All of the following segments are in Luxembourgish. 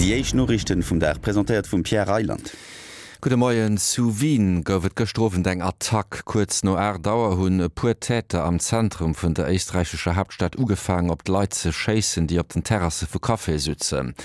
Déi éischt Noriichten vum Dag, presentéiert vum Pierre Reyland. Gudde Moien. Zu Wien gouf et gëschter Owend eng Attack. Kuerz no 8 Auer hunn e puer Täter am Zentrum vun der éisträichescher Haaptstad ugefaangen, op d'Leit ze schéissen, déi op den Terrasse vu Caféë sutzen.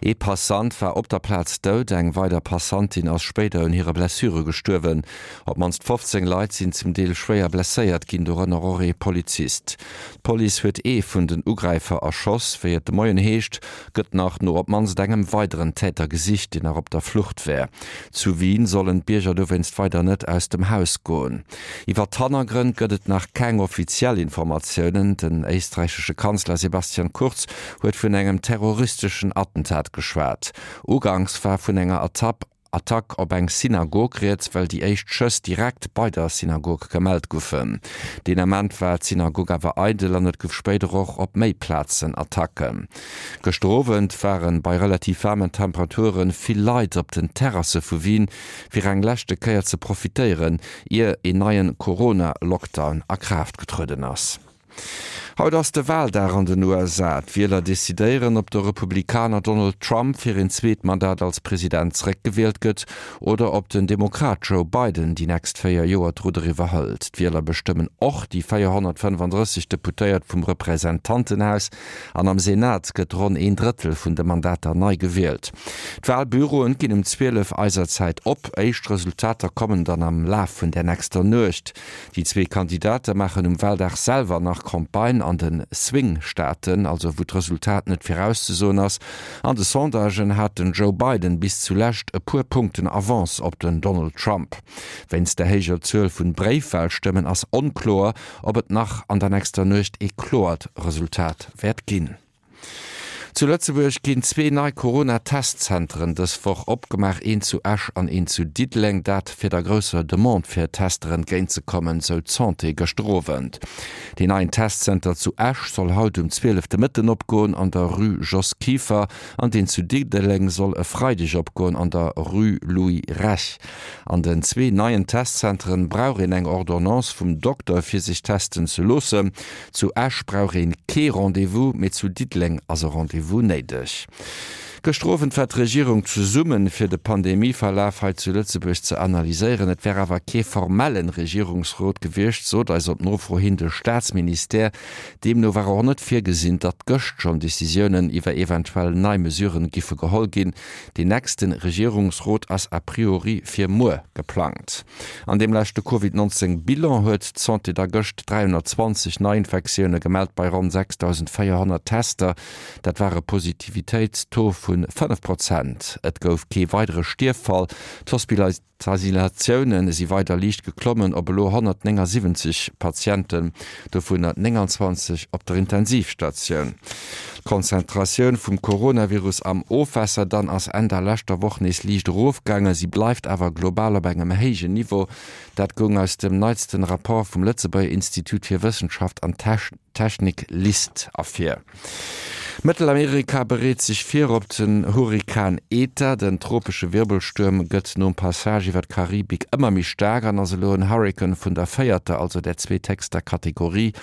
Ee Passant war op der Plaz dout, eng weider Passantin ass spéider un hire Blessure gestuerwen. Op d'mannst 15 Leit sinn zum Deel schwéier blesséiert ginn, dorënner och ee Polizist. D'Police huet ee vun den Ugräifer erschoss. Wéi et de Moien heescht, gëtt nach no op d'mannst engem weideren Täter gesicht, deen nach op der Flucht wär. Zu Wien sollen d'Bierger dowéinst weider net aus dem Haus goen. Iwwer d'Hannergrënn gëtt et nach keng offiziell Informatiounen. Den éisträichesche Kanzler Sebastian Kurz huet vun engem terroristeschen Attentat geschwat. Uganks war vun enger Attack Attack op eng Synagog rieds, well déi éischt Schëss direkt bei der Synagog gemellt goufen. Deen Ament war d'Synagog awer eidel an et gouf spéider och op méi Plazen Attacken. Gëschter Owend ware bei relativ waarmen Temperature vill Leit op den Terrasse vu Wien, fir eng leschte Kéier ze profitéieren, ier een neien Corona-Lockdown a Kraaft getrueden ass. Haut ass de Waldag an den USA. D'Wieler decidéieren, ob de Republikaner Donald Trump fir een zweet Mandat als President zeréckgewielt gëtt oder ob den Demokrat Joe Biden déi nächst 4 Joer d'Rudder iwwerhëlt. D'Wieler bestëmmen och déi 435 Deputéiert vum Representantenhaus an am Senat gëtt ronn een Drëttel vun de Mandater nei gewielt. D'Walbüroen ginn um 12 eiser Zäit op. Éischt Resultater kommen dann am Laf vun der nächster Nuecht. Déi zwee Kandidate maachen um Waldag selwer nach Campagne an de Swing-Staaten, also wou d'Resultat net virauszesoen ass. An de Sondagen hat den Joe Biden bis zu Lescht e puer Punkten Avance op den Donald Trump. Wéinst der héijer Zuel vun Bréifwalstëmmen ass onkloer, ob et nach an der nächster Nuecht ee kloert Resultat wäert ginn. Zu Lëtzebuerg ginn zwee nei Corona-Testzenteren dës Woch opgemaach, een zu Esch an een zu Diddeleng. Dat fir der grousser Demande fir Tester entgéint ze kommen, sou d'Santé gëschter Owend. Deen neien Testzenter zu Esch soll haut um 12 de Mëtten opgoen an der Rue Jos Kieffer an deen zu Diddeleng soll e Freideg opgoen an der Rue Louis Rech. An den zwee neien Testzenteren brauch een eng Ordonnance vum Dokter fir sech testen ze loossen. Zu Esch brauch een kee Rendez-vous, mee zu Diddeleng ass e Rendez-vous néideg. Gëschter Owend war d'Regierung zesummen, fir de Pandemieverlaf hei zu Lëtzebuerg ze analyséieren. Et wär awer kee formellen Regierungsrot gewiescht, sot eis op Nofro hin de Staatsministère. Deemno war och net virgesinn, datt gëscht schonn Decisiounen iwwer eventuell nei Mesuren giffe geholl ginn. Deen nächste Regierungsrot ass a priori fir muer geplangt. An deem leschte Covid 19 Bilan huet d'Santé da gëscht 320 Neiinfektioune gemellt bei ronn 6.400 Tester. Dat war e Positivitéitstaux vu 5 Prozent. Et gouf kee weidere Stierffall. D'Hospitalisatioune si weider liicht geklommen op elo 179 Patienten, dovunner 29 op der Intensivstatioun. D'Konzentratioun vum Coronavirus am Ofwässer dann ass Enn der leschter Woch nees liicht erofgaangen. Si bleift awer global op engem héijen Niveau. Dat goung aus dem neitsten Rapport vum Lëtzebuerger Institut fir Wëssenschaft an Technik, LIST, ervir. Mëttelamerika bereet sech vir op den Hurrikan Eta. Den tropesche Wirbelstuerm gëtt nom Passage iwwer d'Karibik ëmmer méi staark an ass elo en Hurrikan vun der véierter, also der zweethéchster Kategorie.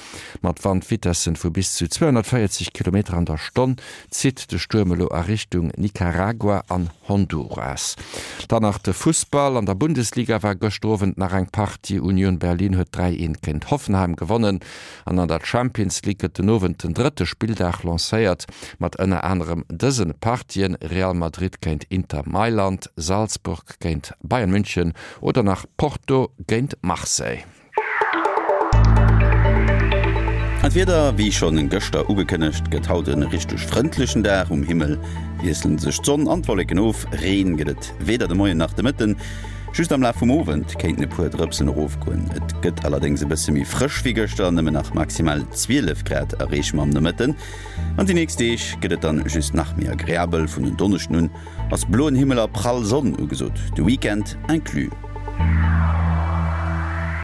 Mat Wandvitessen vu bis zu 240 Kilometer an der Stonn zitt de Stuerm elo a Richtung Nicaragua an Honduras. Dann nach de Fussball, An der Bundesliga war gëschter Owend nach eng Partie. Union Berlin huet 3, 1 géint Hoffenheim gewonnen an an der Champions League gëtt den Owend den drëtte Spilldag lancéiert mat ënner anerem dëse Partien, Real Madrid géint Inter Mailand, Salzburg géint Bayern München oder nach Porto géint Marseille. An d'Wieder, Wéi schonn gëschter ugekënnegt, gëtt haut e richteg frëndlechen Dag. Um Himmel wiessele sech d'Sonn an d'Wolleken of, Reen gëtt et weder de Moien nach de Mëtten. Just am Laf vum Owend kéinten e puer Drëpsen erofgoen. Et gëtt allerdéngs e bësse méi frësch wéi gëschter, nëmmen nach maximal 12 Grad erreeche mer am Nomëtten. An déi nächst Deeg gëtt et dann just nach méi agreabel, vun en Donneschden un ass bloen Himmel a prall Sonn ugesot, de Weekend inclus.